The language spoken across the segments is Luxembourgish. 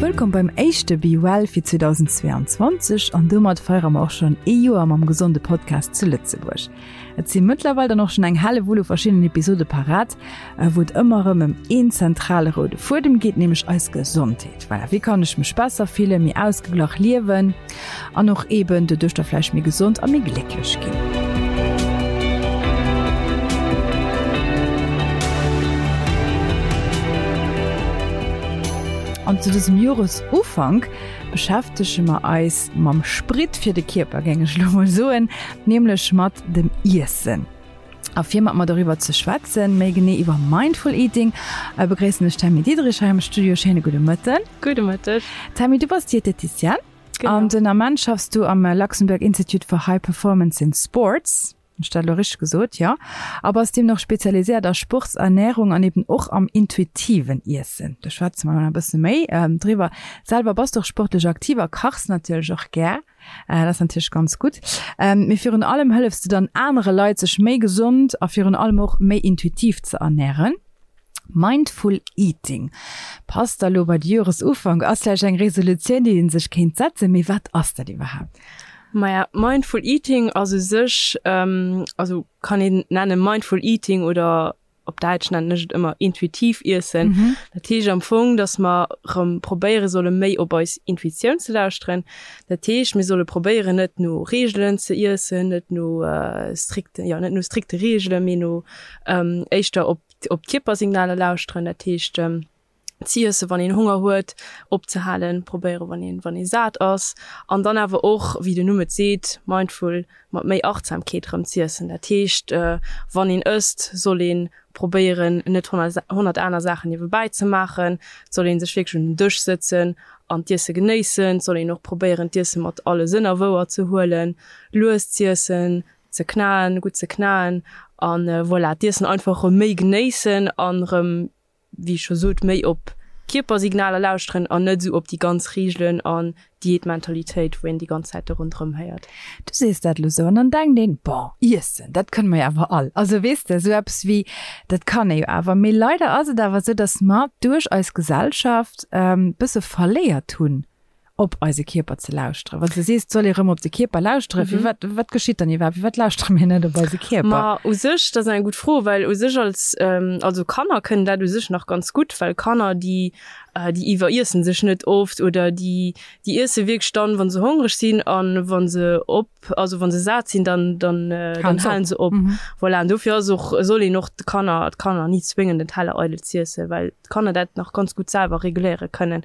Wëllkomm beim éischte Be Well fir 2022 an domat feiere mer och schonn ee Joer mam gesonde Podcast zu Lëtzebuerg. Et si mëttlerweil dann och schonn eng Hellewull u verschiddenen Episode parat, wou et ëmmer erëm ëm een zentrale roude Fuedem geet, nämlech eis Gesondheet. Voilà, wéi kann ech mech besser fillen, méi ausgeglach liewen an och eben doduerch da vläicht méi gesond a méi glécklech ginn. An zu dësem Joresufank beschäftege mer eis mam Sprit fir de Kierper, géing ech elo mol soen, nämlech mat dem Iessen. A fir mat mer doriwwer ze schwätzen, méi genee iwwer Mindful Eating, begréissen ech d'Tammy Diderich hei am Studio. Schéine gudde Mëtten. Gudde Mëtteg. Tammy, du bass Dieteticienne. Genau. An den Ament schaffs du am Luxembourg Institute for High Performance in Sports. Hunn ech dat elo richteg gesot? Jo. A bass deemno och spezialiséiert a Sportsernärung an eben och am intuitiven Iessen. Do schwätze mer elo nach e bësse méi driwwer. Selwer bass du och sportlech aktiv a kachs natierlech och gär. Dat ass natierlech ganz gutt. Mee virun allem hëllefs du dann anere Leit, sech méi gesond a virun allem och méi intuitiv ze ernären. Mindful Eating passt da lo bei de Joresufank, ass vläicht eng Resolutioun, déi ee sech kéint setzen. Mee wat ass dat iwwerhaapt? Maja, Mindful Eating ass u sech, also kann een nennen Mindful Eating oder op Däitsch nennen ech et ëmmer intuitiv iessen. Mhm. Dat heescht am Fong, dass mer rëm probéiere solle méi op eis Intuitioun ze lauschteren. Dat heescht, mir solle probéieren net no Reegelen ze iessen, net no äh, strikte, ja, net no strikte Reegelen, mee no ähm, éischter op, op d'Kierpersignaler lauschteren. Dat heescht, ähm, z'iessen, wann een Honger huet, opzehalen, probéieren, wann een, wann ee sat ass. An dann awer och, wéi den Numm et seet, mindful, mat méi Achtsamkeet erëm z'iessen. Dat heescht, wann een ësst, soll ee probéieren, net 100 aner Saachen niewebäi ze maachen. Et soll ee sech wierklech un den Dësch sëtzen an d'Iesse genéissen. Et soll een och probéieren, d'Iesse mat alle Sënner wouer ze huelen, lues z'iessen, ze knaen, gutt ze knaen an voilà, d'Iessen einfach erëm méi genéissen an erëm wéi ech scho sot, méi op Kierpersignaler lauschteren an net esou op déi ganz Reegelen an Diätmentalitéit, wou een déi ganz Zäit do ronderëm héiert. Du sees dat elo sou an dann denkt een, bon, iessen, dat kënne mer jo awer all. Also weess de, esou eppes wéi, dat kann ee jo awer. Mee leider ass et awer esou, datt mer duerch eis Gesellschaft e bësse verléiert hunn, op eise Kierper ze lauschteren. Wann s de sees, et soll ee rëm op de Kierper lauschteren, firwat, wat geschitt dann iwwerhaapt? Firwat lauschtere mir net op eise Kierper? Ma u sech, dat ass eng gutt Fro, well u sech als, also Kanner kënnen dat u sech nach ganz gutt, well Kanner, déi, déi iwweriessen sech net oft oder déi, déi iesse wierklech dann, wa se hongreg sinn a wa se op, also wa se sat sinn, dann, dann, dann halen se op. Voilà, an dofir ass och, soll een och de Kanner, d'Kanner ni zwéngen, den Teller eidel z'iessen, well d'Kanner dat nach ganz gutt selwer reguléiere kënnen.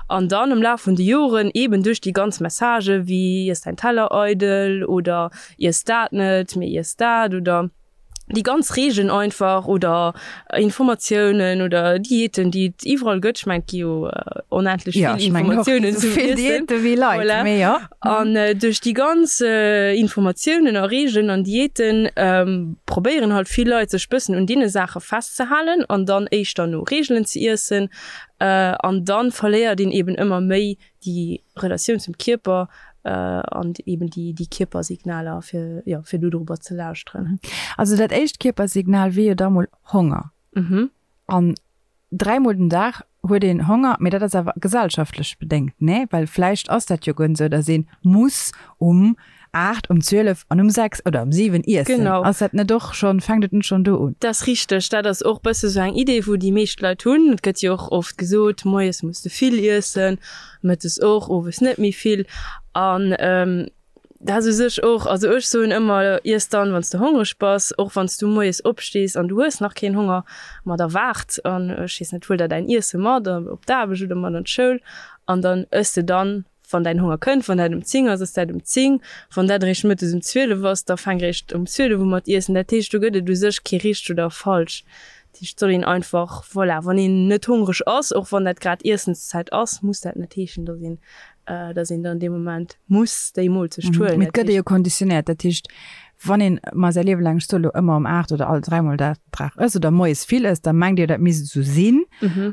An dann am Laf vun de Joren, eben duerch déi ganz Messagë wéi iess däin Teller eidel oder iess dat net, mee iess dat oder déi ganz Reegelen einfach oder Informatiounen oder Diäten, déi et iwwerall gëtt, ech mengen, et gi jo onendlech vill Informatiounen zum Iessen. Voilà. An duerch déi ganz Informatiounen a Reegelen an Diäten probéieren halt vill Leit sech bëssen un deene Saache festzehalen an dann éischter no Reegelen ze iessen. An dann verléiert een eben ëmmer méi déi Relatioun zum Kierper an eben déi déi Kierpersignaler fir jo fir do dorobber ze lauschteren. Also dat éischt Kierpersignal wier jo da mol Honger. An dräimol den Dag huet een Honger, mee dat ass awer gesellschaftlech bedéngt, nee? Well vläicht ass dat jo guer net esou, datt ee muss um 8, um 12 an um 6 oder um 7 iessen. Genau. Ass dat net och schonn, fänkt et net schonn do un? Dat ass richteg. Dat ass och bësse sou eng Idee, wou déi meescht Leit hunn. Et gëtt jo och oft gesot, moies muss de vill iessen, mëttes och, owes net méi vill. An dat ass u sech och, also ech soen ëmmer, iess dann, wann s de hongreg bass, och wann s du moies opstees an du hues nach keen Honger, ma da waart an, ech weess net, huel der däin Iesse mat op d'Aarbecht oder mat an d'Schoul an dann ëss de dann, Wann däin Honger kënnt, wann dat um 10 ass, ass dat um 10. Wann dat eréischt mëttes um 12 ass, da fänk eréischt um 12 u mat iessen. Dat heescht, do gëtt et u sech kee richteg oder falsch. Dat heescht, et soll een einfach, voilà, wann een net hongreg ass, och wann dat grad Iessenszäit ass, muss dat net heeschen, dass een, dass een dann dee Moment muss déi Moolzecht huelen. Mee et gëtt ee jo konditionéiert. Dat heescht, Wann een mar säi Liewe laang, ech soe lo ëmmer um 8 oder all dräimol dat Dag ësst oder moies vill ësst, da mengt Dir, dat misst esou sinn.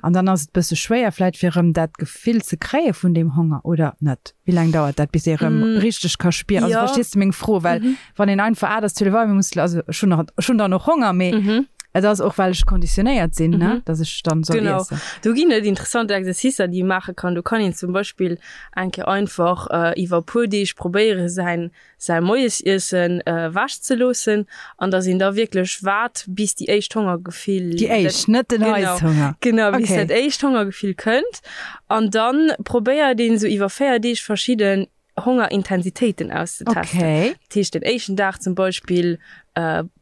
An dann ass et bësse schwéier vläit fir erëm dat Gefill ze kréie vun deem Honger, oder net? Wéi laang dauert dat, bis ee erëm richteg ka spieren? Also verstees de meng Fro? Well wann een einfach 8 ass, 12 Auer, mir musse, also ech hunn nach, ech hunn dann och Honger, mee. Et ass och well ech konditionéiert sinn, ne, dass ech dann soll Genau. iessen. Do ginn et interessant Exercicer, déi ee maache kann. Do kann een zum Beispill eng Kéier einfach iwwer e puer Deeg probéiere säin säi Moiesiessen ewech ze loossen an dass een da wierklech waart bis déi éischt Hongergefill, Déi éischt, net den Heisshunger. Genau, bis dat éischt Hongergefill kënnt an dann probéiert een esou iwwer 4 Deeg verschidden Hongerintensitéiten auszetesten. Okay. Dat heescht den éischten Dag zum Beispill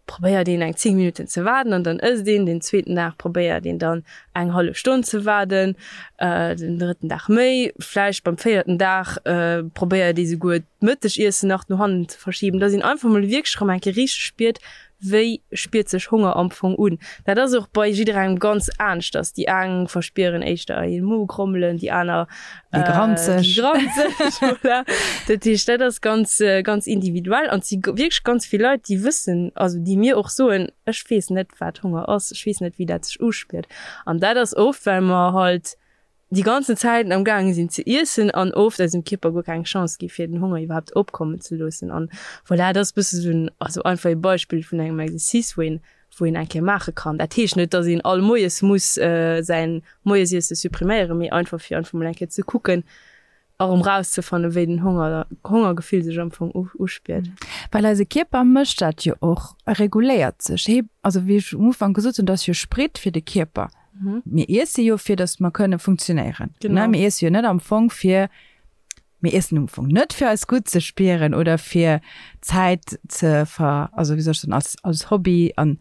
probéiert een eng 10 Minutten ze waarden an dann ësst een. Den zweeten Dag probéiert een dann eng hallef Stonn ze waarden, den drëtten Dag méi. Vläicht beim véierten Dag probéiert ee souguer d'Mëttegiessen nach no hannen ze verschiben, dass een einfach mol wierklech erëm eng Kéier richteg spiert, wéi spiert sech Honger am Fong un. Dat ass och bei jidderengem ganz aneschters. Déi eng verspieren éischter ee Mogrommelen, déi aner Déi granzeg. Déi granzeg, voilà. Dat heescht, dat ass ganz, ganz individuell an et si wierklech ganz vill Leit, déi wëssen, also déi mir och soen, ech weess net, wat Honger ass, ech weess net, wéi dat sech uspiert. An dat ass oft, well mer halt déi ganzen Zäiten am gaange sinn ze iessen an oft eisem Kierper guer keng Chance gi fir den Honger iwwerhaapt opkommen ze loossen. An voilà, dat ass e bësse sou en, also einfach ee Beispill vun engem Exercice, wou een, wou een eng Kéier maache kann. Dat heescht net, datt een all Moies muss säin Moiesiesse suppriméieren, mee einfach fir einfach mol eng Kéier ze kucken a rëm rauszefannen, wéi den Honger, Hongergefill sech am Fong uspiert. Well eise Kierper mécht dat jo och, e reguléiert sech. Hee, also wéi ech um Ufank gesot hunn, dat ass jo Sprit fir de Kierper. Mir iesse jo fir datt mer kënne funktionéieren. Genau. Mir iesse jo net am Fong fir Mir iessen um Fong net fir eis gutt ze spieren oder fir Zäit ze ver, also wéi soll ech soen, als, als Hobby an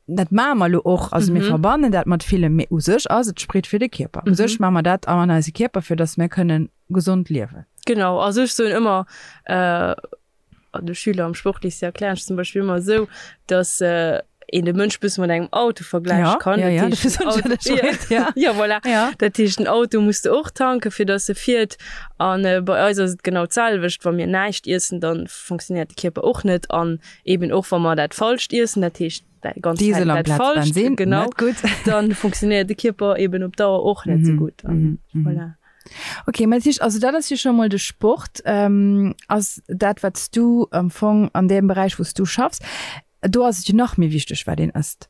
dat maache mer elo och, also mir verbannen dat mat villem, mee u sech ass et Sprit fir de Kierper. U sech maache mer dat an eise Kierper fir datt mir kënnen gesond liewen. Genau, also ech soen ëmmer, de Schüler am Sportlycée erklären ech zum Beispill ëmmer esou, datt een de Mënsch bësse mat engem Auto vergläiche kann. Ja, ja, Dat heescht, dofir den soen ech dat Auto, ech ja. ja, voilà. Ja. Dat heescht, den Auto muss de och tanken, fir datt e fiert. An bei eis ass et genau d'selwecht, wa mir näischt iessen, da funktionéiert de Kierper och net. An eben och wa mer dat Falscht iessen, dat heescht dat ganz Diesel Zäit dat amplaz Falscht, Bensin, genau, net gutt. dann funktionéiert de Kierper eben op Dauer och net esou gutt. An voilà. Ok, mä dat heescht, also dat ass jo scho mol de Sport, ass dat wat s du am Fong an deem Beräich wou s du schaffs, do ass et jo nach méi wichteg wat een ësst.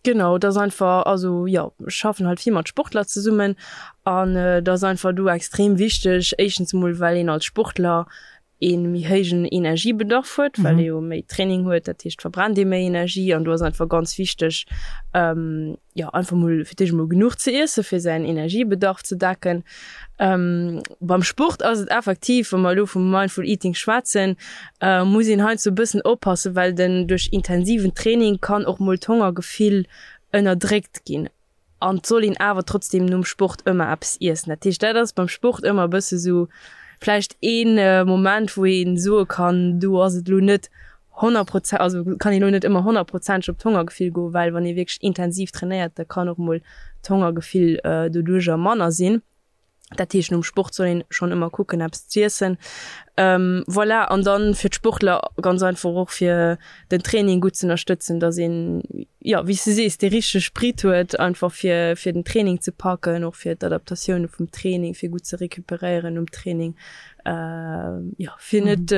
Genau, et ass einfach, also jo, ech schaffen halt vill mat Sportler zesummen an et ass einfach do extrem wichteg, éischtens emol well een als Sportler ee méi héijen Energiebedarf huet, well ee jo méi Training huet, dat heescht verbrennt ee méi Energie an do ass einfach ganz wichteg, jo einfach mol fir d'éischt emol genuch ze iesse fir säin Energiebedarf ze decken. Beim Sport ass et effektiv, wa mer elo vum Mindful Eating schwätzen, muss een heiansdo e bëssen oppassen, well den duerch intensiven Training kann och mol d'Hongergefill ënnerdréckt ginn. An et soll een awer trotzdem nom Sport ëmmer eppes iessen. Dat heescht, dat ass beim Sport ëmmer e bësse sou vläicht ee Moment, wou ee soe kann, do ass et elo net honnertprozent, also kann een elo net ëmmer honnertprozenteg op d'Hongergefill goen, well wann ee wierklech intensiv trainéiert, da kann och mol d'Hongergefill doduercher manner sinn. Dat heescht nom Sport soll een schonn ëmmer kucken eppes z'iessen. Voilà, an dann fir d'Sportler ganz einfach och fir den Training gutt z'ënnerstëtzen, datt een, jo wéi s de sees, dee richtege Sprit huet einfach fir fir den Training ze packen, och fir d'Adaptatioune vum Training, fir gutt ze recuperéieren nom Training, jo fir net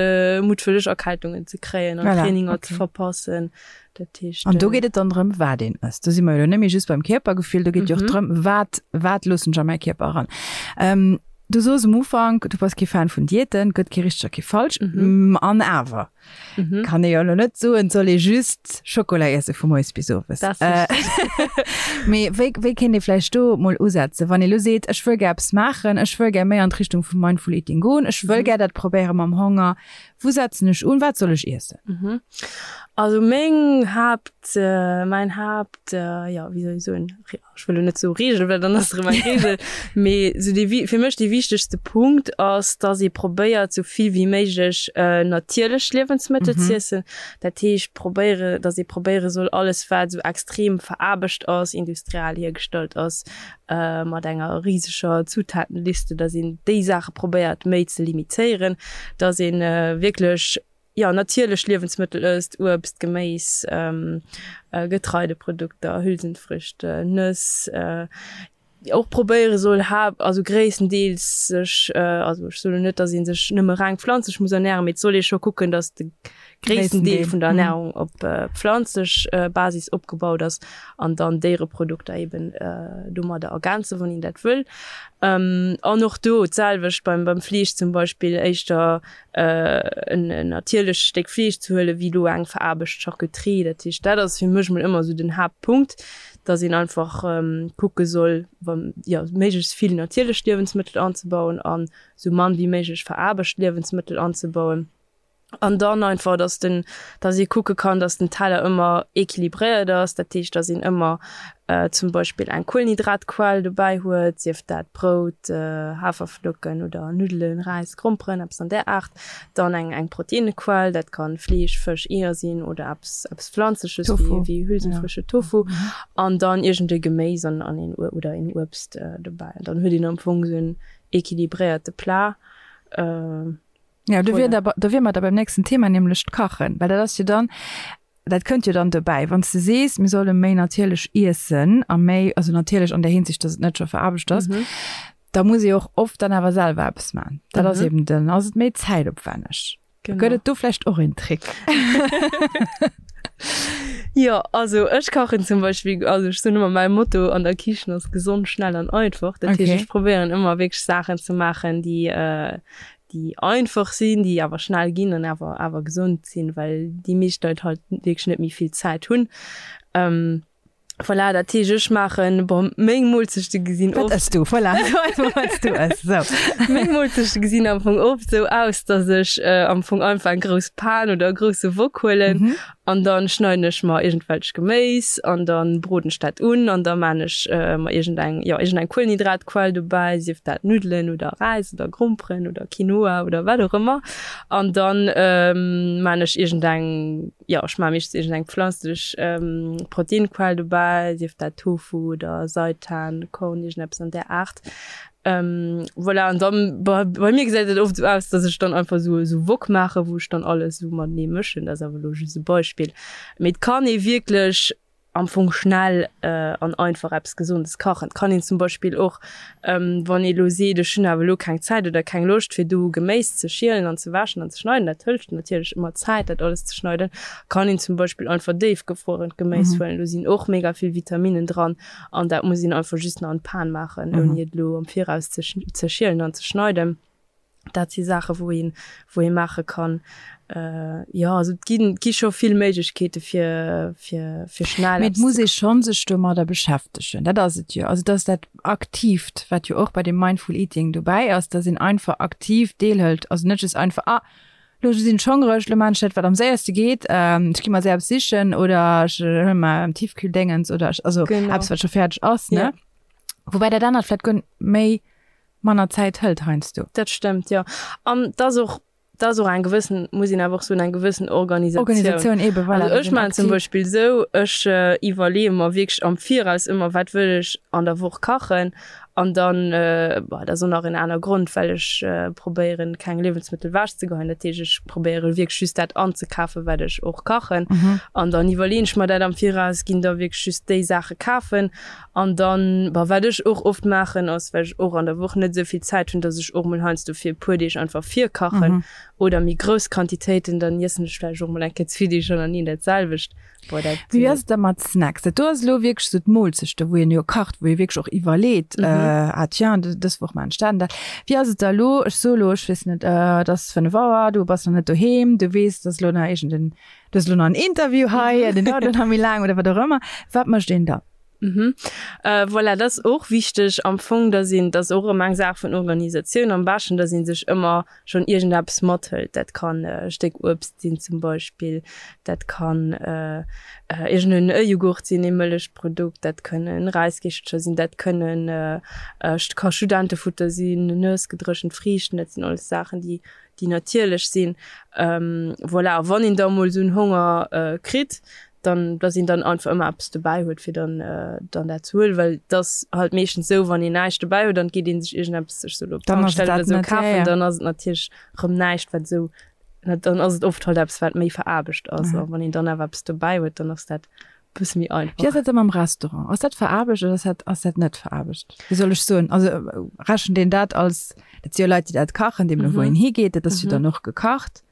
muttwëlleg Erkältungen ze kréien an Traininger ze verpassen. Dat heescht, An do geet et dann drëm, wat een ësst. Do si mer jo elo net méi just beim Kierpergefill, do geet jo och drëm, wat, wat loossen ech a mäi Kierper eran. Ähm, du soos um Ufank, du bass kee Fan vun Diäten, gëtt kee richteg a kee falsch. An awer kann ee jo elo net soen, et soll ee just Schokola iesse vu moies bis owes. Dat ass richteg. Mee wéi, wéi kéint ee vläicht do mol usetzen, wann ee elo seet, ech wëll gär eppes maachen, ech wëll gär méi an d'Richtung vum Mindful Eating goen, ech wëll gär dat probéiere mam Honger, Wou setzen ech un? Wat soll ech iessen? Mhm. Also meng Haapt, mäin Haapt, jo wéi soll ech soen, ech wëll elo net soe Reegel, well dann ass et erëm eng Reegel, mee esou dee fir mech dee wichtegste Punkt ass, dass ee probéiert esou vill wéi méiglech natierlech Liewensmëttel z'iessen. Dat heescht probéiere, dass ee probéiere soll alles wat esou extrem veraarbecht ass, industriell hiergestallt ass, mat enger riseger Zutatenliste, dass een déi Saache probéiert méi ze limitéieren, dass ee wierklech, jo, natierlech Liewensmëttel ësst, Uebst, Geméis, Getreideprodukter, Hülsenfrüchte, Nëss. och probéiere soll also gréisstendeels sech, also ech soen net, datt ee sech nëmme reng pflanzlech muss ernären, mee et soll ee scho kucken, datt de gréissten Deel vun der Ernärung op pflanzlech Basis opgebaut ass an dann Déiereprodukter eben domadder ergänzen, wann een dat wëll. An och do d'selwecht beim beim Fleesch zum Beispill, éischter en natierlecht Stéck Fleesch ze huelen, wéi elo eng veraarbecht Charcuterie. Dat heescht, dat ass fir mech mol ëmmer esou den Haaptpunkt, dass een einfach kucke soll, jo, méiglechst vill natierlech Liewensmëttel anzebauen an esou mann wéi méiglech veraarbecht Liewensmëttel anzebauen. An dann einfach, dass den, dass ee kucke kann, dass den Teller ëmmer équilibréiert ass. Dat heescht, dass een ëmmer zum Beispill eng Kuelenhydratquell dobäi huet, sief dat Brout, Haferflocken oder Nuddelen, Räis, Gromperen, eppes an där Aart. Dann eng eng Proteinnequell, dat kann Fleesch, Fësch, Eeër sinn oder eppes eppes Pflanzleches wéi wéi Hülsenfrüchte, Tofu. An dann iergend e Geméis an an een oder een Uebst dobäi. An dann huet een am Fong esou en équilibréierte Plat. Ja, do wier da, do wier mer da beim nächsten Thema, nämlech d'Kachen, well dat ass jo dann, dat kënnt jo dann dobäi, wann s de sees, mir solle méi natierlech iessen a méi, also natierlech an där Hinsicht, dass et net scho veraarbecht ass, da muss ee och oft dann awer selwer eppes maachen. Dat ass eben, dann ass et méi zäitopwänneg. Genau. Gëtt et do vläicht och een Trick? Jo, also ech kachen zum Beispill, also ech soen ëmmer, mäi Motto an der Kichen ass gesond, schnell an einfach. Dat heescht, ech probéieren ëmmer wierklech Saachen ze maachen, déi, déi einfach sinn, déi awer schnell ginn an awer awer gesond sinn, well déi meescht Leit halt wierklech net méi vill Zäit hunn. Voilà, dat heescht ech maachen, bon, meng Moolzechte gesinn oft. Wat ëss du? Voilà, so einfach wat s du ëss, sou. Meng Moolzechte gesinn am Fong oft sou aus, dass ech am Fong einfach eng grouss Pan oder e grousse Wok huelen an dann schneiden ech mer iergendwelch Geméis an dann broden ech dat un an da maan ech mer iergendeng, jo, iergendeng Kuelenhydratquell dobäi, sief dat Nuddelen oder Räis oder Gromperen oder Quinoa oder wat och ëmmer an dann maan ech iergendeng, jo, ech maan meeschtens iergendeng pflanzlech Proteinquell dobäi, sief dat Tofu oder Seitan, Korn, iergendeppes an där Aart. Voilà, an dann, bei, bei mir gesäit et oft esou aus, dass ech dann einfach esou, esou Wok maachen, wou ech dann alles esou matenee mëschen. Dat ass awer elo just e Beispill. Mee et kann ee wierklech am Fong schnell an einfach eppes Gesondes kachen. Et kann een zum Beispill och, wann ee elo seet, ech hunn awer elo keng Zäit oder keng Loscht fir do Geméis ze schielen an ze wäschen an ze schneiden, dat hëlt natierlech ëmmer Zäit, dat alles ze schneiden, kann een zum Beispill einfach déifgefruerent Geméis huelen. Do sinn och mega vill Vitaminnen dran. An dat muss een einfach just nach an d'Pan maachen, ouni et elo am Viraus ze ze schielen an ze schneiden. Dat si Saache wou een, wou ee maache kann. Jo, also et ginn, et gi scho vill Méiglechkeete fir, fir, fir schnell Mee et muss ee schonn sech domadder beschäftegen, dat ass et jo. Also et ass dat Aktiivt, wat jo och bei deem Mindful Eating dobäi ass, dass een einfach aktiv deelhëlt, also net just einfach, ah, Lo sinn ech hongreg, lo maan ech dat wat am séierste geet, ech gi mer séier eppes sichen oder ech huele mer am Tiefkühldéngens oder ech, also genau. eppes wat scho fäerdeg ass, ne? Ja. Woubäi dat anert vläit guer méi manner Zäit hëlt heiansdo. Dat stëmmt, jo. An 't ass och, 't ass och eng gewëssen, muss een awer och soen, eng gewëssen Organisatioun. Organisatioun eben, voilà. Also ech maachen zum Beispill esou, ech iwwerleeë mer wierklech am Viraus ëmmer, wat wëll ech an der Woch kachen An dann, bon, dat ass och nach en aner Grond, well ech probéieren, keng Liewensmëttel ewechzegeheien. Dat heescht, ech probéiere wierklech just dat anzekafen, wat ech och kachen. An dann iwwerleeën ech mer dat am Viraus, ginn da wierklech just déi Saache kafen. An dann, bon, wat ech och oft maachen, ass, well ech och an der Woch net esou vill Zäit hunn, dass ech och mol heiansdo fir e puer Deeg einfach virkachen oder méi grouss Quantitéiten, dann iessen ech vläicht och mol eng Kéier zwee Deeg hannerteneen dat selwecht. Boah, dat, Wéi ass et da mat Snacks? Dat do ass elo wierklech esou d'Moolzechte, wou een jo kacht, wou ee wierklech och iwwerleet, ah tiens, dës Woch maachen ech dat an dat. Wéi ass et da elo, ech soe elo, ech weess net, et ass 5 Auer, du bass nach net doheem, du weess, et ass elo nach iergend en, du hues elo nach en Interview hei, deen dauert elo nach méi laang oder wat och ëmmer. Wat mécht een da? Mhm. Voilà, dat ass och wichteg am Fong, dass een, dat ass och erëm eng Saach vun Organisatioun am beschten, dass ee sech ëmmer schonn iergendeppes mathëlt. Dat kann e Stéck Uebst sinn zum Beispill, dat kann iergenden e Jughurt sinn, ee Mëllechprodukt, dat kënnen Räiskeechelcher sinn, dat kënnen, ka Studentefutter sinn, Nëss, gedréchent Friichten, dat sinn alles Saachen, déi, déi natierlech sinn. Voilà, a wann een da mol esou en Honger kritt, dann, dass een dann einfach ëmmer eppes dobäi huet, fir dann, dann dat ze huelen, well et ass halt meeschtens esou, wann een näischt dobäi huet, dann geet ee sech iergendeppes, ech soe lo, op d'Tankstell oder esou kafen, dann ass et natierlech erëm näischt, wat esou, dann ass et oft halt eppes, wat méi veraarbecht ass. A wann een dann awer eppes dobäi huet, dann ass dat. Bësse méi einfach. Wéi ass dat da mam Restaurant? Ass dat veraarbecht oder ass dat, ass dat net veraarbecht? Wéi soll ech soen? Also rechent een dat als, dat si jo Leit, déi dat kachen, deemno wou een higeet, dat ass jo dann och gekacht.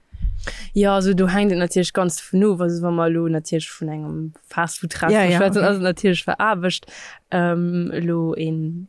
Jo, also do hänkt et natierlech ganz dovun of. Also wa mer elo natierlech vun engem Fastfood-Restaurant schwätzen, ass et natierlech veraarbecht. Elo een,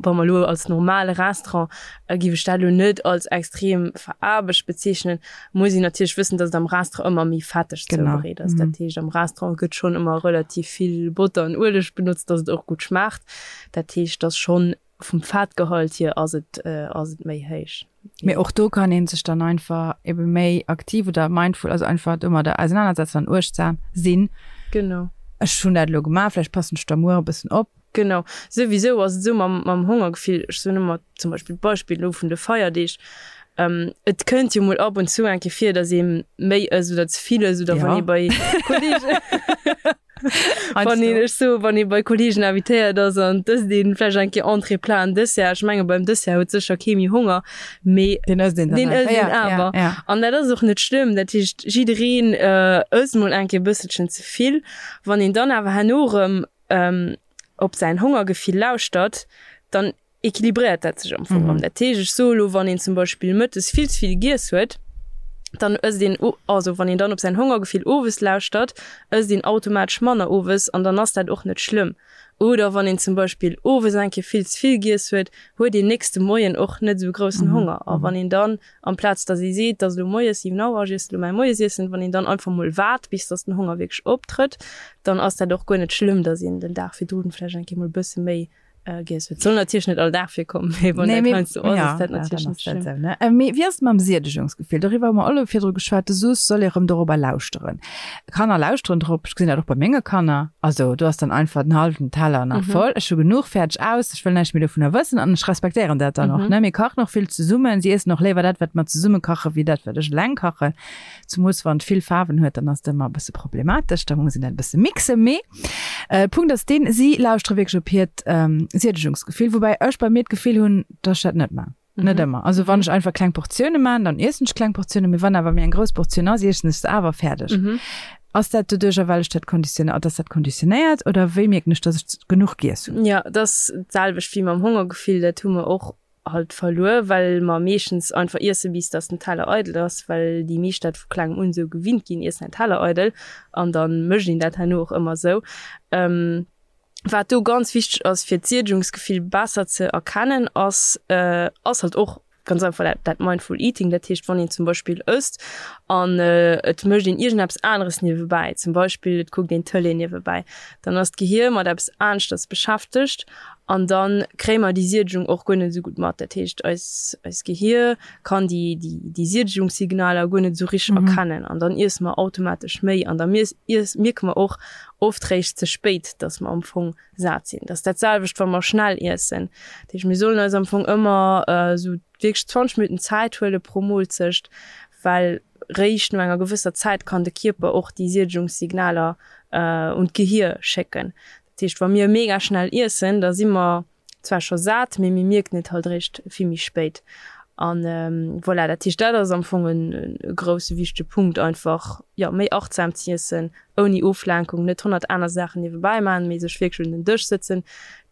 wa mer elo als normale Restaurant, géif ech dat elo net als extrem veraarbecht bezeechnen. Muss een natierlech wëssen, datt et am Restaurant ëmmer méi fetteg zoubereet ass. Dat heescht, am Restaurant gëtt schonn ëmmer relativ vill Botter an Ueleg benotzt, datt et och gutt schmaacht. Dat heescht, datt schonn Vum Fettgehalt hier ass et ass et méi héich. Mee och do kann een sech dann einfach ebe méi aktiv oder mindful, also einfach domadder ausenanersetzen an uechtsam sinn. Genau. Ech hunn dat elo gemaach, vläicht passen ech da muer e bëssen op. Genau. Souwisou ass et esou mam mam Hongergefill, ech soen ëmmer zum Beispill d'Beispill elo vun de Feierdeeg, et kënnt jo mol ab und zu eng Kéier vir, datt ee méi ësst oder ze vill ësst oder wann ee bei Kolleegen Wann een, ech soe wann ee bei Kolleegen invitéiert ass an et ësst een vläicht eng Kéier Entrée, Plat an Dessert, ech menge beim Dessert huet sécher kee méi Honger, mee deen ësst een dann deen ësst een awer. An dat ass och net schlëmm. Dat heescht, jiddereen ësst mol eng Kéier e bësselchen ze vill. Wann een dann awer herno erëm op säin Hongergefill lauschtert, dann equilibréiert dat sech am Fong erëm. Dat heescht, ech soe elo, wann een zum Beispill mëttes vill ze vill giess huet, dann ësst een, also wann een dann op säin Hongergefill owes lauschtert, ësst een automatesch manner owes an dann ass dat och net schlëmm. Oder wann een zum Beispill owes eng Kéier vill ze vill giess huet, huet een nächste Moien och net esou groussen Honger. A wann een dann, amplaz datt ee seet, et ass elo moies 7 Auer, ech iessen elo mäi Moiesiessen, wann een dann einfach mol waart, bis datt den Honger wierklech optrëtt, dann ass dat och guer net schlëmm, datt een den Dag virdrun vläicht eng Kéier mol e bësse méi Giess huet. Soll natierlech net all Dag virkommen, mee wann dat heiansdo ass, ass dat natierlech net schlëmm. Mee wéi ass et mam Siedegungsgefill? Doriwwer hu mer och elo virdru geschwat. Du soos, soll ee rëm dorobber lauschteren. Kanner lauschteren drop. Ech gesinn dat och bei menge Kanner. Also do ass dann einfach den hallwen Teller nach voll. Ech hu genuch, fäerdeg, aus. Ech wëll näischt méi dovunner wëssen an ech respektéieren dat dann och, ne. Mir kachen och vill zesummen. Si iessen och léiwer dat, wat mer zesumme kachen, wéi dat, wat ech eleng kachen. Zemoos wann et vill Faarwen huet, dann ass et ëmmer e bësse problematesch. Da muss een dat e bësse mixen. Mee Punkt ass deen, si lauschtere wierklech op hiert Siedegungsgefill, woubäi ech bei mir d'Gefill hunn, dass ech dat net man. Net ëmmer. Also wann ech einfach kleng Portioune man, dann iessen ech kleng Portiounen, mee wann awer méi eng grouss Portioun ass, iessen ech se awer fäerdeg. Ass dat doduercher, well ech dat konditionéiert, ass dat konditionéiert oder wéi mierken ech, dass ech genuch giess hunn? Jo, et ass d'selwecht wéi mam Hongergefill, dat hu mer och halt verluer, well mer meeschtens einfach iessen, bis dass den Teller eidel ass, well déi meescht dat vu klengem un esou gewinnt ginn, iess däin Teller eidel an da mécht een dat herno och ëmmer esou. Wat do ganz wichteg ass, fir d'Siedegungsgefill besser ze erkennen, ass ass halt och ganz einfach dat dat Mindful Eating, dat heescht, wann een zum Beispill ësst an et mécht een iergendeppes aneres niewebäi, zum Beispill et kuckt een d'Tëlee niewebäi, dann ass d'Gehier mat eppes aneschters beschäftegt An da kréie mer déi Siedegung och guer net esou gutt mat. Dat heescht, eis, eist Gehier kann déi, déi, déi Siedegungssignaler guer net esou richteg erkennen. An dann iesse mer automatesch méi. An da mies, iess, mierke mer och oft réischt ze spéit, dass mer am Fong sat sinn. Dat ass dat selwecht, wa mer schnell iessen. Dat heescht, mir sollen eis am Fong ëmmer esou wierklech 20 Minutten Zäit huele pro Moolzecht, well réischt no enger gewësser Zäit kann de Kierper och déi Siedegungssignaler un d'Gehier schécken. Dat heescht, wa mir mega schnell iessen, da si mer zwar scho sat, mee mir mierken et halt eréischt vill méi spéit. An voilà, dat heescht, dat ass am Fong e grousse wichtege Punkt, einfach, jo, méi achtsam z'iessen, ouni Oflenkung, net 100 aner Saachen niewebäi maachen, mee sech wierklech un den Dësch sëtzen,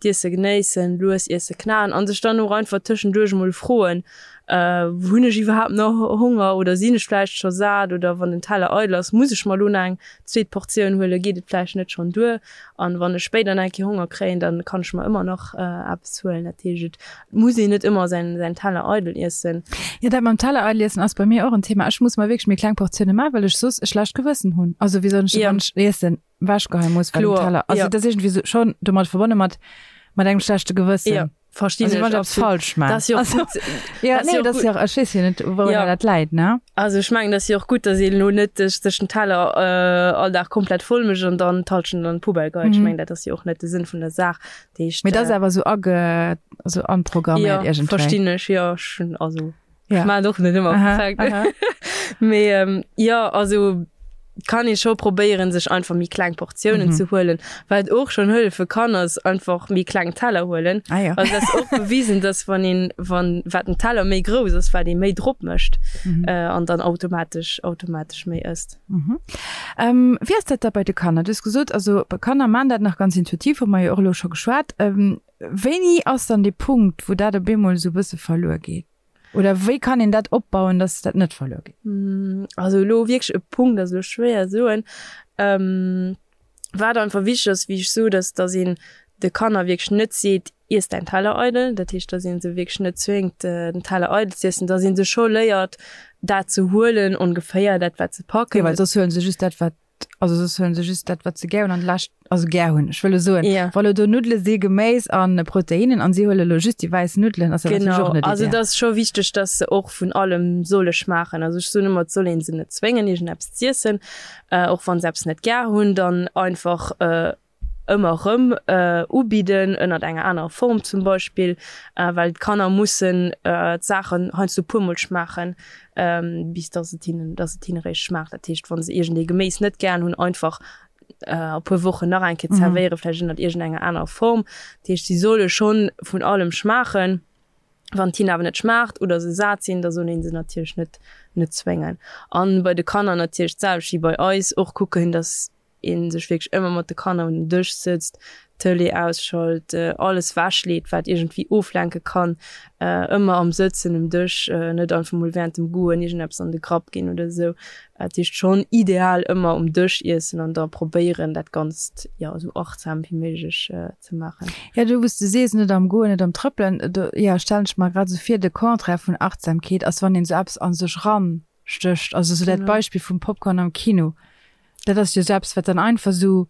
d'Iesse genéissen, lues iesse, knaen an sech dann och einfach tëschenduerch emol froen, Hunn ech iwwerhaapt nach Honger oder sinn ech vläicht scho sat oder wann den Teller eidel ass, muss ech mer elo nach eng zweet Portioun huelen, geet et vläicht net schonn duer? An wann ech spéider nach eng Kéier Honger kréien, dann kann ech mer ëmmer nach eppes huelen. Dat heescht, et muss een net ëmmer säin säin Teller eidel iessen. Jo, dat mam Teller eidel iessen ass bei mir och en Thema. Ech muss mer wierklech méi kleng Portioune maachen, well ech soss e schlecht Gewëssen hunn. Also wéi soll ech, wann ech iessen, ewechgeheie muss, well den Teller, also dat ass iergendwéi sou schonn domat verbonne mat mat engem schlechte Gewëssen. Jo. Verstinn also, ech absolut. falsch man. Das jo also, gut. Ja, nee, das ja, ech weess jo net, wou ja. dat läit, ne? Also ech mengen, dat jo och gutt, dass een lo net sech sech den Teller äh, all Dag komplett voll mécht an dann d'Halschent an d'Poubelle geheit. Mm. Ech mengen, dat ass jo och net de Sënn vun der Saach. Heescht, Mee dat ass äh, awer sou age, also anprogramméiert ja, iergendwéi. Verstinn ech, ja, schon, also ja. ech maan och net ëmmer perfekt. Mee ähm, ja, also. Kann ee scho probéieren, sech einfach méi kleng Portiounen ze huelen. Wat och schonn hëllefe kann, ass einfach méi kleng Teller huelen. Ah ja. Also dat ass och bewisen, dass wann een, wann, wat den Teller méi grouss ass, wat ee méi drop mécht an dann automatesch, automatesch méi ësst. Wéi ass dat da bei de Kanner? Du hues gesot, also Kanner maan dat nach ganz intuitiv, hu mer jo och elo scho geschwat. Wéini ass dann dee Punkt, wou dat op eemol esou e bësse verluer geet? Oder wéi kann een dat opbauen, dass dat net verluer geet? Also elo wierklech e Punkt ass elo schwéier soen. Wat einfach wichteg ass, wéi ech sot, ass, dass een de Kanner wierklech net seet, Iess däin Teller eidel. Dat heescht, dass ee se wierklech net zwéngt, den Teller eidel z'iessen, dass ee se scho léiert, dat ze huelen, ongeféier dat, wat se packen. Jo, well soss huele se just dat, wat Also soss huelen se just dat, wat se gär hunn an de Lescht, also gär hunn. Ech wëll elo soen, Ja. wa lo do Nuddele si, Geméis an Proteinen an si huele lo just déi wäiss Nuddelen, ass dat natierlech Genau, och net also ideal. et ass scho wichteg, dass se och vun allem solle schmaachen. Also ech soen ëmmer, et soll ee se net zwéngen, iergendeppes z'iessen, och wa se eppes net gär hunn, dann einfach ëmmer erëm ubidden, ënnert enger anerer Form zum Beispill, well d'Kanner mussen d'Saachen heiansdo e puermol schmaachen, bis dass et hinnen, dass et hinne réischt schmaacht. Dat heescht, wa se iergendee Geméis net gären hunn, einfach a puer Wochen nach eng Kéier zerwéieren, vläicht ënnert iergendenger anerer Form. Dat heescht, si solle schonn vun allem schmaachen. Wann et hinnen awer net schmaacht oder se sat sinn, da soll ee se natierlech net, net zwéngen. A bei de Kanner natierlech d'selwecht wéi bei eis, och kucken, dass een sech wierklech ëmmer mat de Kanner un den Dësch sëtzt, d'Tëlee ausschalt, alles wechleet, wat iergendwéi oflenke kann, ëmmer am Sëtzen um Dësch, net einfach mol wärend dem Goen iergendeppes an de Grapp ginn oder esou. Dat heescht schonn ideal ëmmer um Dësch iessen an da probéieren, dat Ganzt, jo, esou achtsam wéi méiglech ze maachen. Jo, do wou s de sees, net am Goen, net am Trëppelen, do, jo, stellen ech mer grad esou vir, de Contraire vun Achtsamkeet ass, wann een esou eppes a sech ran stécht. Also esou dat Beispill vum Popcorn am Kino, dat ass jo esou eppes, wat dann einfach esou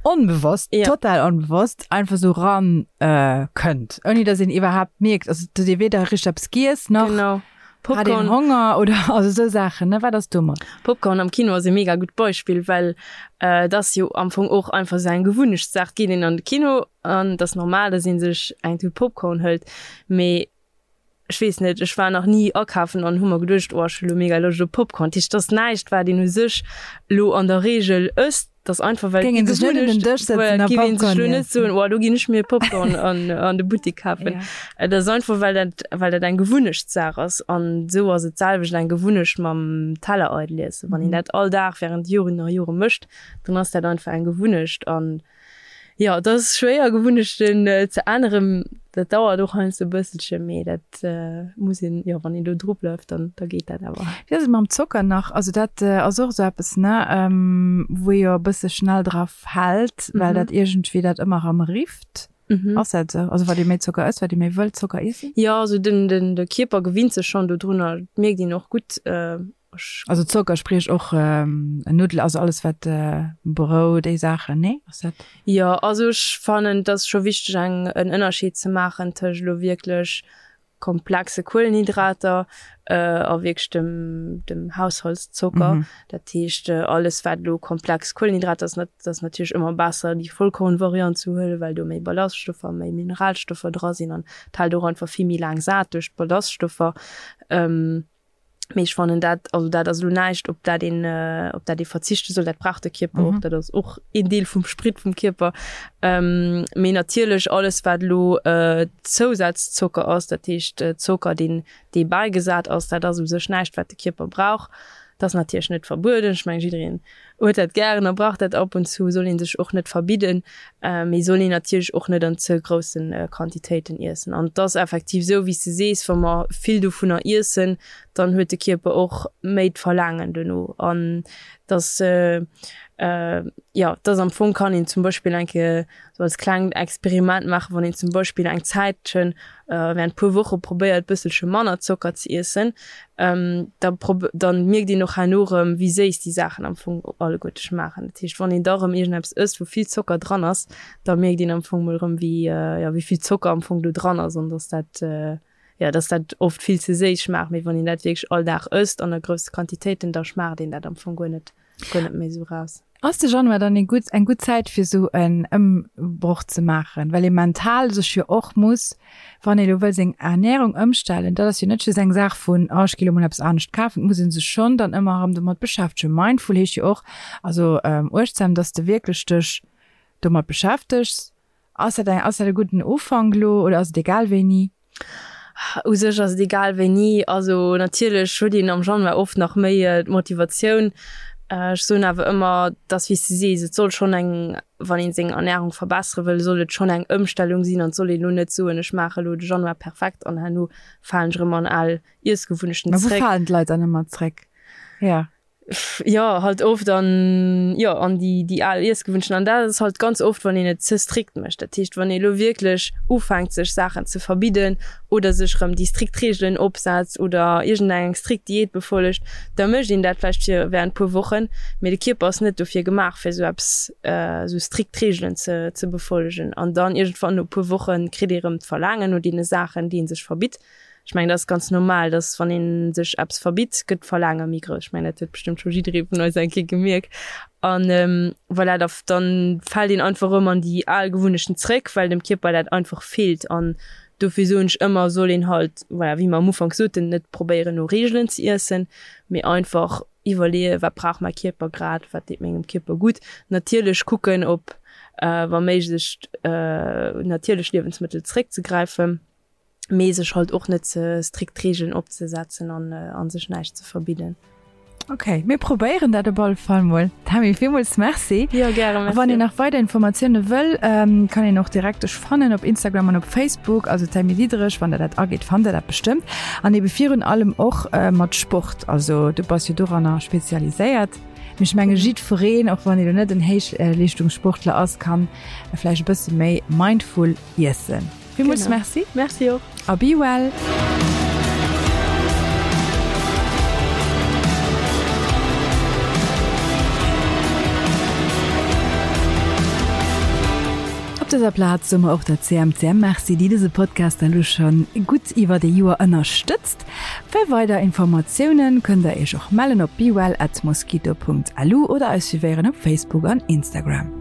onbewosst, Ja. total onbewosst einfach esou ran kënnt, ouni datt een iwwerhaapt mierkt, also datt ee weder richteg eppes giess nach Genau. hat een Popcorn, Honger oder also esou Saachen, ne? Wat ass domat? Popcorn am Kino ass e mega gutt Beispill, well et ass jo am Fong och einfach esou eng Gewunnechtssaach. Et geet een an de Kino an et ass normal, datt ee sech eng Tut Popcorn hëlt, mee Ech weess net, ech war nach ni akafen an hu mer geduecht, oh ech hu lo mega Loscht op Popcorn. Dat heescht, et ass näischt wat een u sech lo an der Reegel ësst, et ass einfach well Géing een sech net un den Dësch voilà, sëtzen a géif een sech Popcorn lo net iessen. soen, oh do ginn ech mir Popcorn an an de Buttek kafen. Ja. Et ass einfach well dat well dat eng Gewunnechtssaach ass an esou ass et d'selwecht eng Gewunnecht mam Teller eidel iessen. Wann een dat all Dag während Joren a Jore mécht, dann ass dat einfach eng Gewunnecht an Jo, et ass schwéier Gewunnechten ze änneren. Dat dauert och heiansdo e bësselche, mee dat muss een, jo, wann een do dru bleift, dann da geet dat awer. Wéi ass et mam Zocker nach? Also dat ass och esou eppes, ne, wou ee jo e bësse schnell dra fält, well dat iergendwéi dat ëmmer erëm rifft. Ass dat esou? Also wat ee méi Zocker ësst, wat ee méi wëll Zocker iessen? Jo, also den, den, de Kierper gewinnt sech schonn dodrunner. Dat mierkt een och gutt. Also Zocker, spriech och Nuddel, also alles wat Brout, déi Saachen, nee? Ass dat? Jo, also ech fannen et ass scho wichteg eng en Ënnerscheed ze maachen tëscht elo wierklech komplexe Kuelenhydrater a wierklech dem dem Haushaltszocker. Dat heescht alles wat elo komplex Kuelenhydrater ass, dat ass natierlech ëmmer besser déi Vollkornvariant ze huelen, well do méi Ballaststoffer, méi Mineralstoffer dra sinn an et hält och einfach vill méi laang sat duerch d'Ballaststoffer. Mee ech fannen dat, also dat ass elo näischt, op dat een, op dat ee verzichte soll. Dat brauch de Kierper och, dat ass och een Deel vum Sprit vum Kierper. Mee natierlech alles, wat elo Zousazzocker ass, dat heescht Zocker, deen, dee bäigesat ass, dat ass u sech näischt, wat de Kierper brauch. Dat ass natierlech net verbueden. Ech mengen, jiddereen huet dat gären a brauch dat ab und zu, soll ee sech och net verbidden, mee soll een natierlech och net an ze grousse Quantitéiten iessen. An et ass effektiv esou, wéi s de sees, wa mer vill dovunner iessen, dann huet de Kierper och méi d'Verlaangen dono. An dass, jo, dass am Fong kann een zum Beispill eng Kéier sou als klengt Experiment maachen, wann een zum Beispill eng Zäitchen, während puer Woche probéiert bësselche manner Zocker ze iessen, da dann mierkt een och herno erëm wéi séiss déi Saachen am Fong alleguerte schmaachen. Dat heescht wann een da erëm iergendeppes ësst wou vill Zocker dran ass, da mierkt een am Fong mol erëm wéi, jo, wéi vill Zocker am Fong do dran ass an dass dat, jo, dass dat oft vill ze séiss schmaacht. Mee wann een dat wierklech all Dag ësst an a grousse Quantitéiten, da schmaacht een dat am Fong guer net, guer net méi esou raus. Ass de Januar dann ee gutt, eng gutt Zäit fir esou en Ëmbroch ze maachen, well ee mental sech jo och muss, wann ee lo wëll seng Ernährung ëmstellen, dat ass jo net just eng Saach vun, oh ech gi lo mol eppes anescht kafen, et muss ee sech schonn dann ëmmer erëm domat beschäftegen. Mindful heescht jo och, also uechtsam, dass de wierklech dech domat beschäftegs. Ass dat eng, ass dat e gudden Ufank lo oder ass et egal wéini? U sech ass et egal wéini. Also natierlech huet een am Januar oft nach méi d'Motivatioun. Ech soen awer ëmmer, dass wéi s de sees, et soll schonn eng, wann een seng Ernärung verbessere wëll, soll et schonn eng Ëmstellung sinn an et soll een elo net soen, ech maache elo de Januar perfekt an herno falen ech erëm an al Iessgewunnechten zréck. Mä wou falen d'Leit dann ëmmer zréck? Jo. Jo, halt oft an, jo, an déi, déi al Iessgewunnechten. An dat ass halt ganz oft, wann een et ze strikt mécht. Dat heescht, wann ee lo wierklech ufänkt, sech Saachen ze verbidden oder sech erëm déi strikt Reegelen opsetzt oder iergendeng strikt Diät befollegt, da mécht een dat vläicht fir während puer Wochen, mee de Kierper ass net dofir gemaach, fir esou eppes, esou strikt Reegelen ze, ze befollegen. An dann iergendwann no puer Woche kritt ee erëm d'Verlaangen no deene Saachen, déi ee sech verbitt. Ech mengen, dat ass ganz normal, dass wann ee sech eppes verbitt, gëtt d'Verlaange méi grouss. Ech mengen, dat huet bestëmmt scho jidderee vun eis eng Kéier gemierkt. An voilà, da dann fält een einfach erëm an déi al Gewunnechten zréck, well dem Kierper dat einfach feelt. An dofir soen ech ëmmer, soll een halt, voilà, wéi mer am Ufank soten, net probéieren no Reegelen ze iessen, mee einfach iwwerleeën, wat brauch mäi Kierper grad, wat deet mengem Kierper gutt. Natierlech kucken, op wa méiglech natierlech Liewensmëttel zréckzegräifen. mee sech halt och net ze strikt Regeln opzesetzen an an sech näischt ze verbidden. Ok, mir probéieren dat op alle Fall mol. Tammy, villmools Merci. Jo, gäre, merci. Wann een nach weider Informatioune wëll, kann een och direkt dech fannen op Instagram an op Facebook, also Tammy Diederich, wann der dat agitt, fannt der dat bestëmmt. An ebe virun allem och mat Sport, also du bass jo doranner spezialiséiert. Mee ech menge jiddwereen, och wann ee lo net en Héichleeschtungssportler ass, kann vläicht e bësse méi mindful iessen. Villmools Merci. Merci och. A be well. Op dëser Plaz soe mer och der CMCM Merci, déi dëse Podcast elo scho gutt iwwert ee Joer ënnerstëtzt. Fir weider Informatiounen kënnt der iech och mellen op bewell at mosquito.lu oder eis suivéieren op Facebook an Instagram.